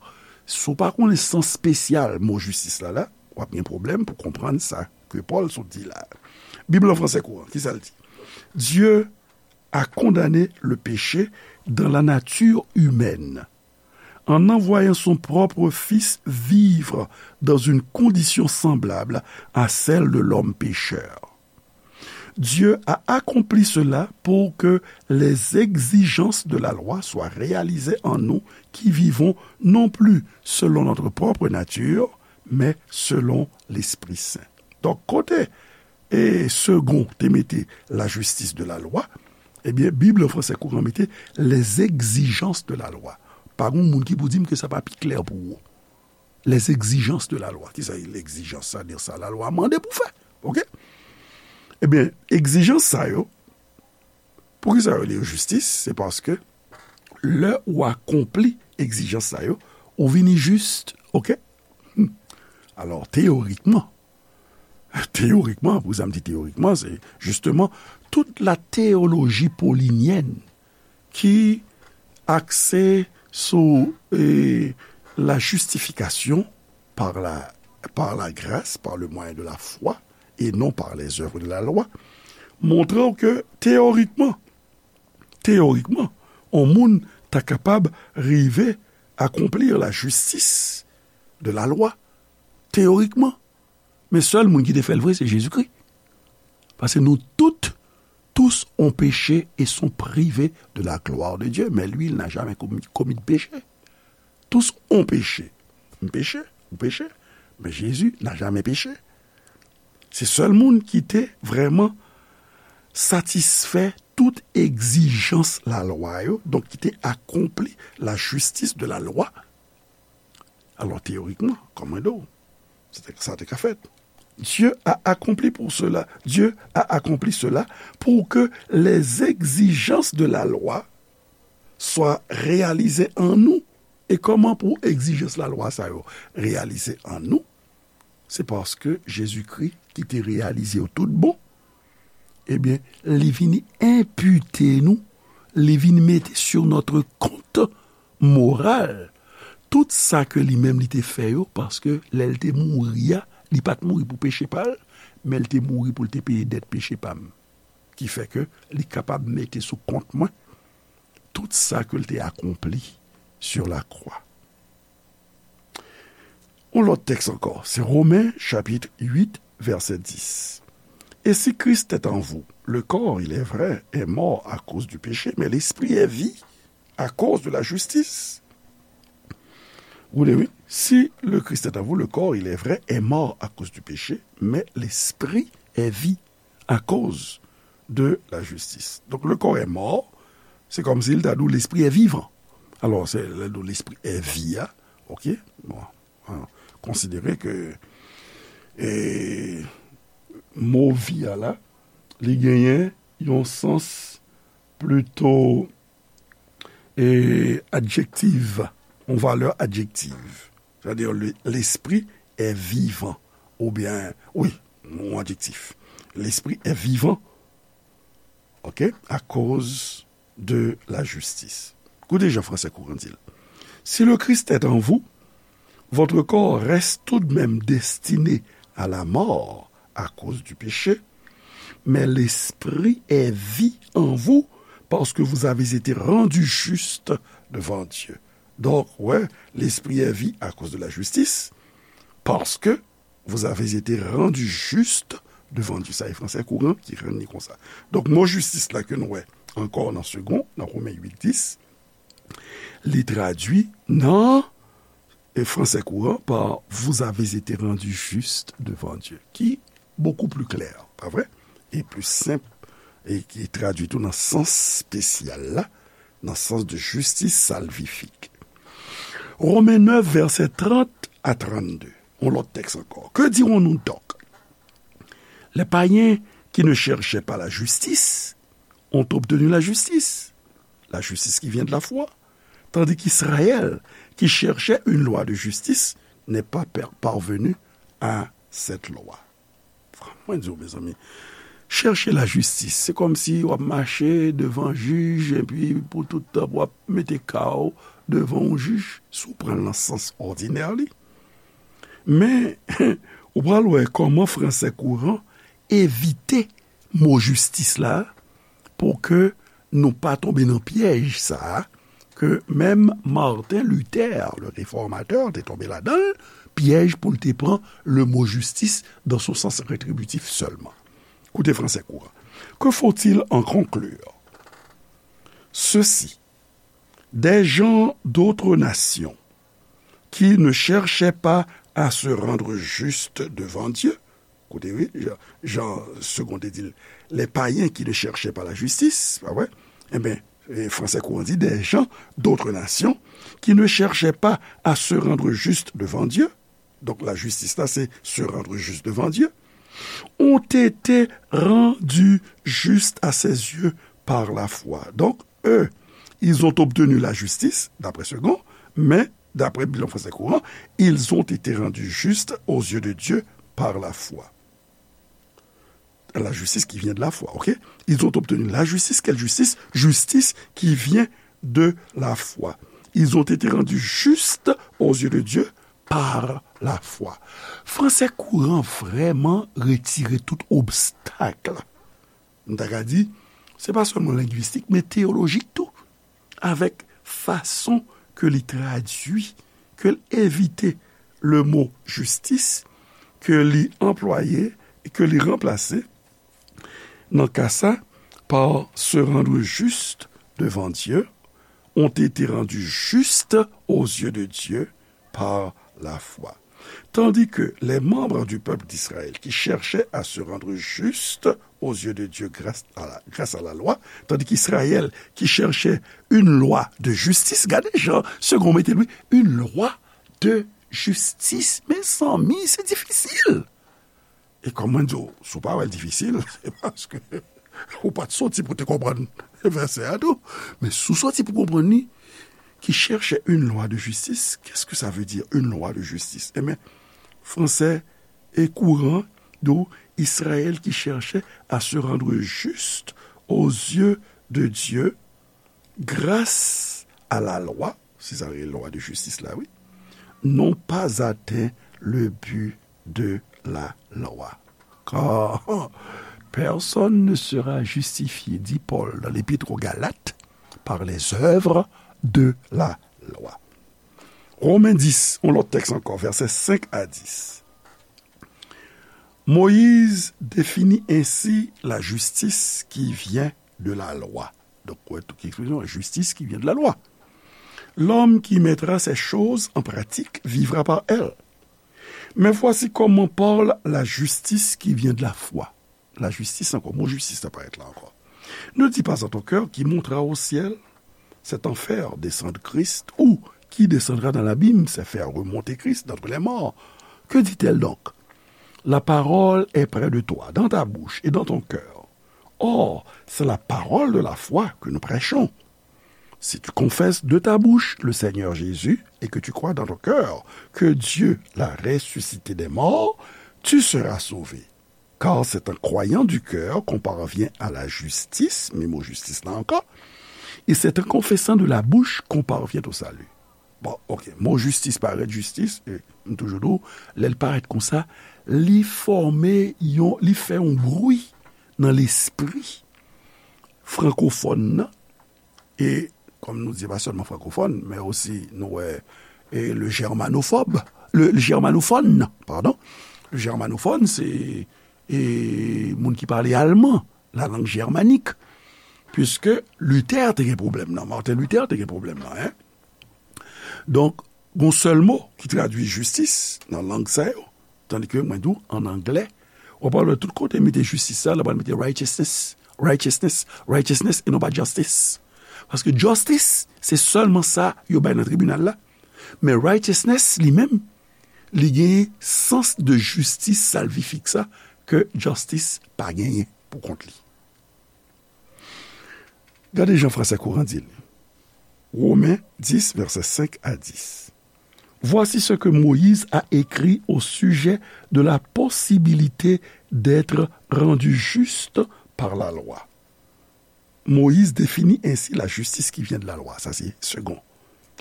si w pa konnen sans espesyal mo jistis la, la, w ap gen pwoblèm pou konprann sa ke Pòl sot di la. Bib lan fransè kouran, ki sa l di? Dieu a condamné le péché dans la nature humaine, en envoyant son propre Fils vivre dans une condition semblable à celle de l'homme pécheur. Dieu a accompli cela pour que les exigences de la loi soient réalisées en nous qui vivons non plus selon notre propre nature, mais selon l'Esprit Saint. Donk, kote e segon te mete la justice de la loi, ebyen, Bib lan fransè kouran mete les exigences de la loi. Pa gen moun ki pou di m ke sa pa pi klè pou ou. Les exigences de la loi. Ki sa ye egzijans? Sa di sa lalwa mande pou fè. Oke? Ebyen, egzijans sa yo, poukisa yo rele yo jistis? Se paske lè ou akonpli egzijans sa yo, ou vini jis, oke? Hmm. Alò, teyorikman, teyorikman, pou sa m di teyorikman, se jisteman tout la théologie paulinyèn ki akse sou, e, la justification par la, par la grâce, par le moyen de la foi, et non par les œuvres de la loi, montre w ke teyorikman, teyorikman, yon moun ta kapab rive akonpli la justice de la loi, teyorikman. Men sèl moun ki te fè l vre, se Jezikri. Paske nous toutes, tous ont péché et sont privés de la gloire de Dieu. Mais lui, il n'a jamais commis, commis de péché. Tous ont péché. M peche, ou peche, men Jezi n'a jamais péché. Se sèl moun ki te vrèman satisfè tout egzijans lalwa yo, donk ki te akonpli la justice de la loi. Alò, teyorikman, kòm mwen di w, se te, sa te ka fèt. Dieu a accompli pour cela, Dieu a accompli cela pour que les exigences de la loi soient réalisées en nous. E kòman pou egzijans lalwa sa yo reyalize an nou? Se paske Jezikri, ki te reyalize yo tout bon, ebyen, li vini enpite nou, li vin mete sur notre compte moral tout sa ke li menm li te fè yo, paske lè l te mouri a, li pa t mouri pou peche pa l, men l te mouri pou l te peye dèt peche pa m. Ki fè ke li kapab mete sou kont mwen tout sa ke l te akonpli sur la croix. Yon lòt tèks ankò, se Romen chapit uit, vèsè dis. Et si Christ est en vous, le corps, il est vrai, est mort à cause du péché, mais l'esprit est vie à cause de la justice. Ou li, wi. Si le Christ est en vous, le corps, il est vrai, est mort à cause du péché, mais l'esprit est vie à cause de la justice. Donk, le corps est mort, se kòmsi l ta di w l'esprit est vivant. Alò, se lè l di w l'esprit est vie a, oke? Bon, an, konsidere ke, e, mo vi a la, li genyen yon sans plito, e, adjektif, yon valè adjektif. Sètadi, le, l'esprit est vivant. Oubyen, wi, yon adjektif. L'esprit est vivant, oke, à cause de la justice. Koute jan fransè kouran di l. Si le Christ est en vous, votre corps reste tout de même destiné à la mort à cause du péché, mais l'esprit est vie en vous parce que vous avez été rendus justes devant Dieu. Donk, wè, l'esprit est vie à cause de la justice, parce que vous avez été rendus justes devant Dieu. Sa e fransè kouran ki rann li konsa. Donk, mo jistis la ke nou wè ankò nan segon, nan Romen uit dis, li tradui nan, e, fransè kouran pa vous avez été rendus justes devant Dieu, ki bokou pli klè, pa vre? E pli senp, e ki tradui tou nan sans espesyal la, nan sans de justice salvifique. Romen nèf, vèsè trant a trannde. Yon lòt tèks ankò. Que dirons-nous donc? Les païens qui ne cherchaient pas la justice ont obtenu la justice, la justice qui vient de la foi, tandis qu'Israël, qui cherchait une loi de justice, n'est pas per-, parvenu à cette loi. Mwen di w, mezanmi, chèche lajistis, se kòmsi w ap mache devan jij, epi pou tout tan, w ap mete ka w devan yon jij, si w pran l nan sans òdinè li. Men, ou pral wè kòman fransè kouran evite mo jistis la, pou ke nou pa tonbe nan pyèj sa a, ke menm Martin Luther, le réformateur, te tonbe ladan l, pyèj pou l te pran le mot justice dans son sens rétributif seulement. Koute fransè kouran. Que faut-il en conclure? Ceci, des gens d'autres nations qui ne cherchaient pas à se rendre justes devant Dieu. Koute, wi, jan, jan Segond te di l, les païens qui ne cherchaient pas la justice, pa vre? Enben, e, fransè kouran di, des gens d'autres nations qui ne cherchaient pas à se rendre justes devant Dieu. Donk, lajistis la, se se rendre juste devant Dieu, ont été rendus justes à ses yeux par la foi. Donc, eux, ils ont obtenu la justice, d'après Segond, mais, d'après Bilan Français Courant, ils ont été rendus justes aux yeux de Dieu par la foi. La justice qui vient de la foi, ok? Ils ont obtenu la justice. Quelle justice? Justice qui vient de la foi. Ils ont été rendus justes aux yeux de Dieu par la foi. Fransè kouran vrèman retire tout obstak. M ta ka di, se pa sèlman lengwistik, men teyolojik tou, avèk fason ke li tradui, ke l evite le mo jistis, ke li anplwaye e ke li ranplase, nan ka sa, par se rendre juste devant Dieu, ont été rendus justes aux yeux de Dieu par la foi. Tandis que les membres du peuple d'Israël qui cherchaient à se rendre justes aux yeux de Dieu grâce à la, grâce à la loi, tandis qu'Israël qui cherchait une loi de justice, gade jan Segond mete l, wi, une loi de justice. Mezanmi, se difisil. E kòm mwen di w, si w pa wè l difisil, se paske ou pa t soti pou te konprann vèsè a tou. Men si w soti pou konprann li, qui cherchait une loi de justice, qu'est-ce que ça veut dire, une loi de justice? Ebyen, fransè e kouran di w, Israël qui cherchait à se rendre juste aux yeux de Dieu grâce à la loi, se sa rele lwa de jistis la, wi, n'ont pas atteint le but de la loi. Car personne ne sera justifié, dit Paul dans l'Épître aux Galates, par les œuvres de la loi. Romen dis, yon lòt tèks ankò, vèsè senk a dis. Moïse définit ainsi la justice qui vient de la loi. Donk, ou wè tout ki ekspresyon, justice qui vient de la loi. L'homme qui mettra ces choses en pratique vivra par elles. Mais voici comment parle la justice qui vient de la foi. Lajistis ankò, mo jistis la parèt la ankò. Ne dis pas en ton cœur, qui montera au ciel, c'est en faire descendre Christ, ou qui descendra dans l'abîme, c'est faire remonter Christ d'entre les morts. Que dit-elle donc? La parole est près de toi, dans ta bouche et dans ton cœur. Or, c'est la parole de la foi que nous prêchons. Si tu confesses de ta bouche le Seigneur Jésus et que tu crois dans ton cœur que Dieu l'a ressuscité des morts, tu seras sauvé. Car c'est en croyant du cœur qu'on parvient à la justice, men mo jistis la ankò, et c'est en confessant de la bouche qu'on parvient au salut. Bon, ok, mo jistis parèt jistis, e m toujou di w, lè l parèt konsa, li fòme yon, li fè yon bri nan lespri frankofòn nan, e kòm nou di, pa sèlman frankofòn, men osi nou wè, e le germanophobe, le, le germanophone, pardon. Le germanophone, se, e, moun ki pale alman, la langue germanique. Puisque Luther te gen pwoblèm nan, Martin Luther te gen pwoblèm nan, en. Donk, gon sèl mo ki tradui jistis nan lang sa yo, tandi ke mwen di w, an anglè, w ap wè tout kote mete jistis sa, l ap mete righteousness, righteousness, righteousness, e non pa justice. Paske justice, se sèlman sa yo bay nan tribinal la. Men righteousness, li menm, li genyen sans de jistis salvifik sa, ke justice pa genyen pou kont li. Gade jan fransè kouran di l. Women dis, vèsè senk a dis. Voici ce que Moïse a écrit au sujet de la possibilité d'être rendu juste par la loi. Moïse définit ainsi la justice qui vient de la loi. Sa se segon.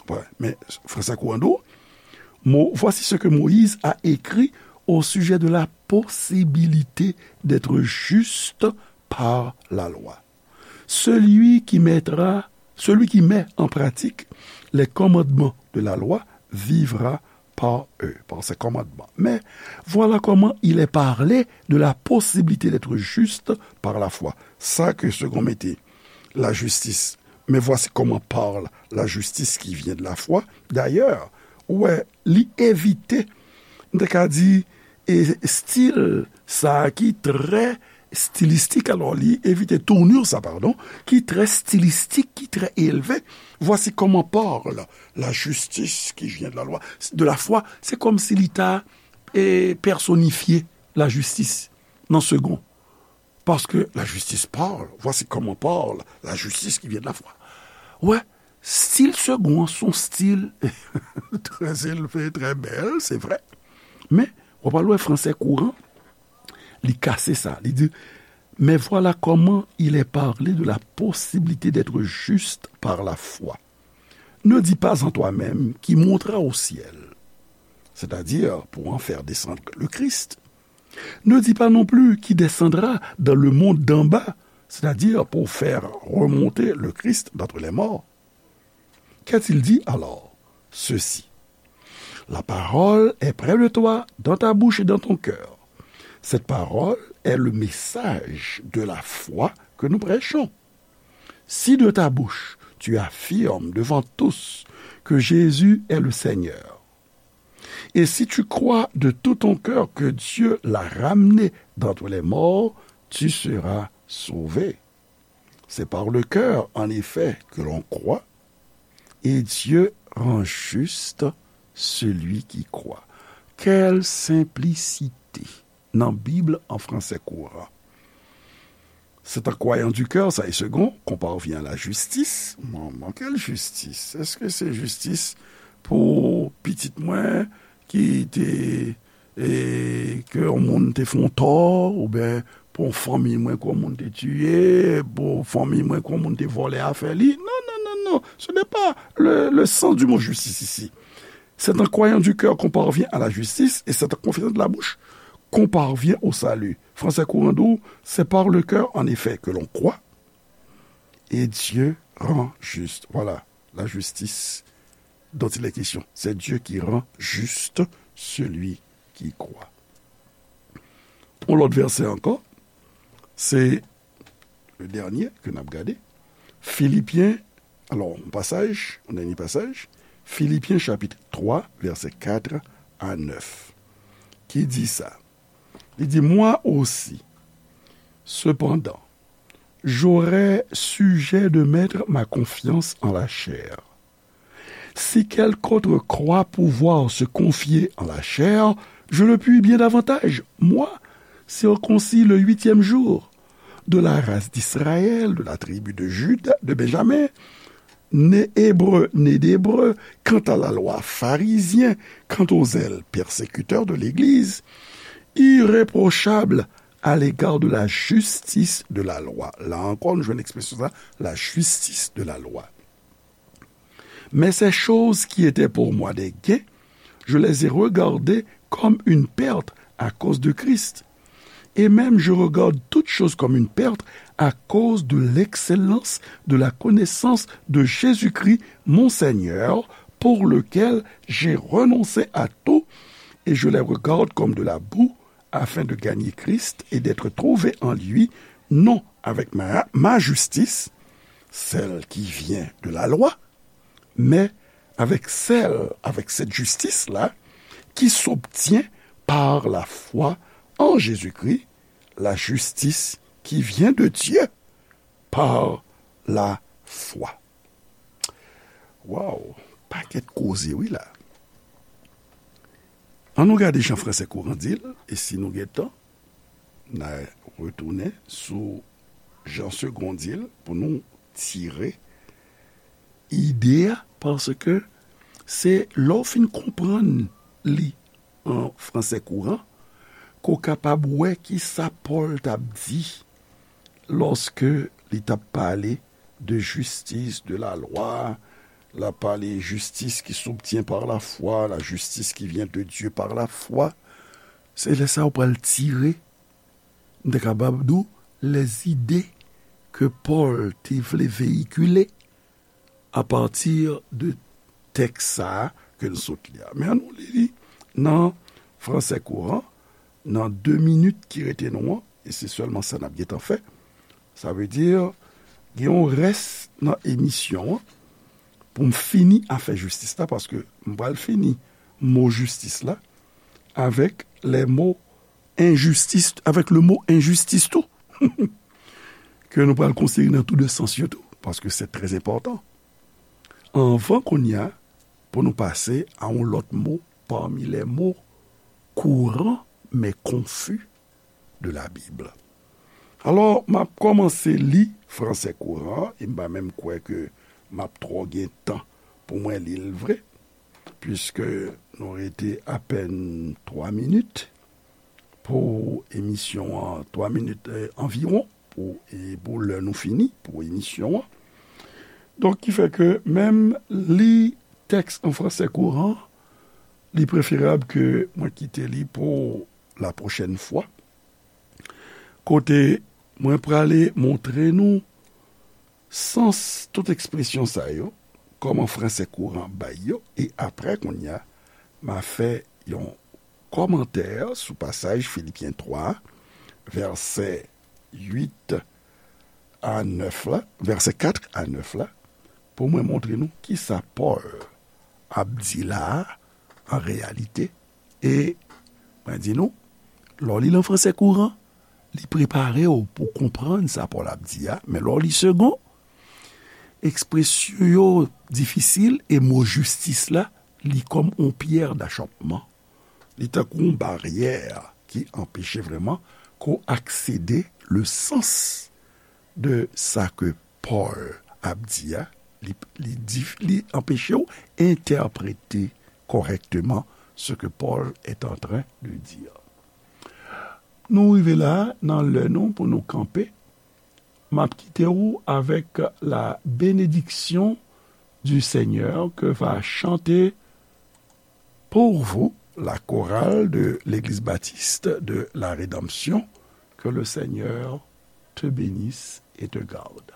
Wè, men fransè kouran di w, Mo, voici ce que Moïse a écrit au sujet de la possibilité d'être juste par la loi. Celui qui mettra, celui qui met en pratique les commandements de la loi vivra par eux, par ses commandements. Mais voilà comment il est parlé de la possibilité d'être juste par la foi. Sa ke segon mete la justice. Mais voici comment parle la justice qui vient de la foi. D'ailleurs, ou wè, li evite, m te ka di, e stil sa a ki trè stilistik, alò, li evite tournure sa, pardon, ki trè stilistik, ki trè elve. Voici comment parle la justice qui vient de la loi, de la foi. Se kòmsi li ta e, pèsonifye lajistis nan segon. Parce que la justice parle. Voici comment parle la justice qui vient de la foi. Wè, stil segon an se yon stil trè elve, trè bèl, se vre. Men, w ap al wè fransè kouran, li kase sa. Li di, mais voilà comment il est parlé de la possibilité d'être juste par la foi. Ne dis pas en toi-même, qui montera au ciel, c'est-à-dire pour en faire descendre le Christ. Ne dis pas non plus qui descendra dans le monde d'en bas, c'est-à-dire pour faire remonter le Christ d'entre les morts. Qu'a-t-il dit alors ? Ceci. La parole est près de toi, dans ta bouche et dans ton cœur. Cette parole est le message de la foi que nous prêchons. Si de ta bouche tu affirmes devant tous que Jésus est le Seigneur, et si tu crois de tout ton cœur que Dieu l'a ramené d'entre les morts, tu seras sauvé. C'est par le cœur, en effet, que l'on croit, et Dieu rend juste celui qui croit. Quelle simplicité ! Nan Bib an fransè kouran. C'est en croyant du cœur, ça est second, qu'on parvient à la justice. Manman, quelle justice ? Est-ce que c'est justice pour pitit mwen ki te, e, ke yon moun te fè yon tò, oubyen pou yon fanmi mwen ke yon moun te tiye, pou yon fanmi mwen ke yon moun te vòlè afè li ? Non, non, non, non. Ce n'est pas le, le sens du mot justice ici. C'est en croyant du cœur qu'on parvient à la justice et c'est en confessant de la bouche qu'on parvient au salut. Fransè kouran di w, c'est par le cœur, en effet, que l'on croit et Dieu rend juste. Voilà, la justice dont il est question. C'est Dieu qui rend juste celui qui croit. Yon lòt vèsè ankò, se le dènye ke n ap gade. Filipyen, alò, yon pasaj, yon dènye pasaj, Filipyen chapit twa, vèsè kat a nèf, ki di sa. Li di, moi aussi, cependant, j'aurai sujet de mettre ma confiance en la chair. Si quelque autre croit pouvoir se confier en la chair, je le puis bien davantage, moi, circoncis le huitième jour, de la race d'Israël, de la tribu de Juda, de Benjamin, né hébreu, né d'hébreu, quant à la loi, pharisien, quant au zèle, persécuteur de l'Église, irréprochable à l'égard de la justice de la loi. La ankò, nou jwenn ekspresyon sa, la justice de la loi. Mais ces choses qui étaient pour moi des gains, je les ai regardées comme une perte à cause de Christ. Et même je regarde toutes choses comme une perte à cause de l'excellence de la connaissance de Jésus-Christ, mon Seigneur, pour lequel j'ai renoncé à tout, et je les regarde comme de la boue, afin de gagner Christ et d'être trouvé en lui, non avec ma, ma justice, celle qui vient de la loi, mais avec celle, avec cette justice-là, qui s'obtient par la foi en Jésus-Christ, la justice qui vient de Dieu par la foi. Waw, pakèt koze wi la. An nou gade jan fransè kouran di l, e si nou gen tan, n a retounen sou jan segon di l pou nou tire ide a, paske Se lè w fin konprann li an fransè kouran, ke w kapab wè ki sa Pòl t ap di lòske li t ap pale de jistis, de la lwa, l ap pale jistis ki s'obtient par la foi, la justice qui vient de Dieu par la foi. Se lè sa w pral tire, m te kapab di w, lèzide ke Pòl te vle veyikile apati de tèks sa a ke n sot li a. Men ann nou li li nan fransè kouran, nan de minit ki rete nou an, e se sèlman sa n ap gentan fè. Sa vle di, gen yon rès nan emisyon an pou m fini afè jistis la, paske m pral fini mo jistis la avèk lè mo enjistis, avèk le mo enjistis tou, ke nou pral konsidere nan tou de sans yo tou, paske se trè enpòtan. Anvan kounye a, pou nou pase a yon lòt mo pami lè mo kouran men konfi de la Bib. Alò, m ap kòmanse li fransè kouran, e m pa menm kwè ke m ap twò gen tan pou mwen li l vre, piske nou rete apèn twa minit pou emisyon an, twa minit, eh, anviwon pou, e pou lè nou fini pou emisyon an. Donk, ki fè ke menm li tèks an fransè kouran, li preferab ke mwen kite li pou la pwochèn fwa. Kote mwen prale montre nou sans tout ekspresyon sa yo, kòman fransè kouran bay yo, e apre kounye a, m a fè yon kòmantè sou pasaj Filipyen twa, vèsè uit a nèf la, vèsè kat a nèf la, pou mwen montre nou kisa Pòl ap di la a, an reyalite. E mwen di nou, lè w li l an fransè kouran, li prepare w pou konprann sa Pòl ap di a, men lè w li segon, ekspresyon yo difisil e mo jistis la, li kòm yon pyè dachòpman. Li tankou yon baryè ki anpeche vrèman ke w aksede le sans de sa ke Pòl ap di a, li, li di, li anpeche w entèprete kòrèkteman ce que Paul est en train de dire. Nou rive la, nan lè nou pou nou kanpe. M ap kite w avèk la bénédiction du Seigneur que va chanter pour vous la chorale de l'Église baptiste de la Rédemption. Que le Seigneur te bénisse et te garde.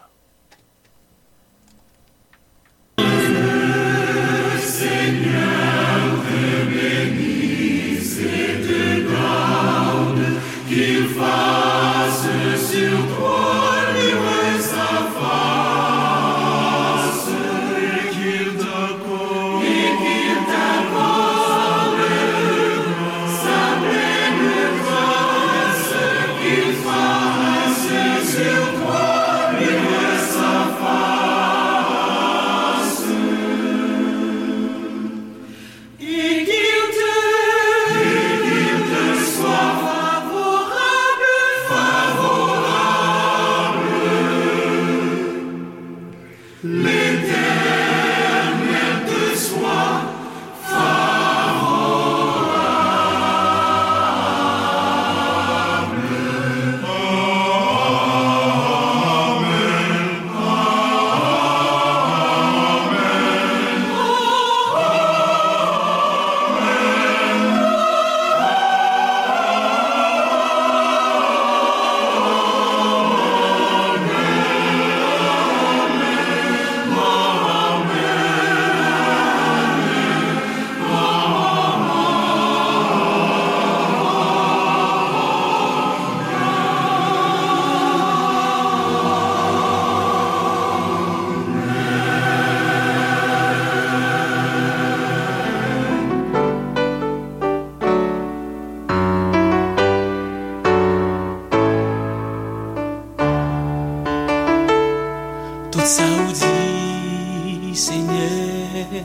Tout sa ou di, Senyè,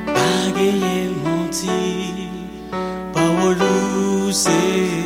pa genyen manti. Pawòl ou se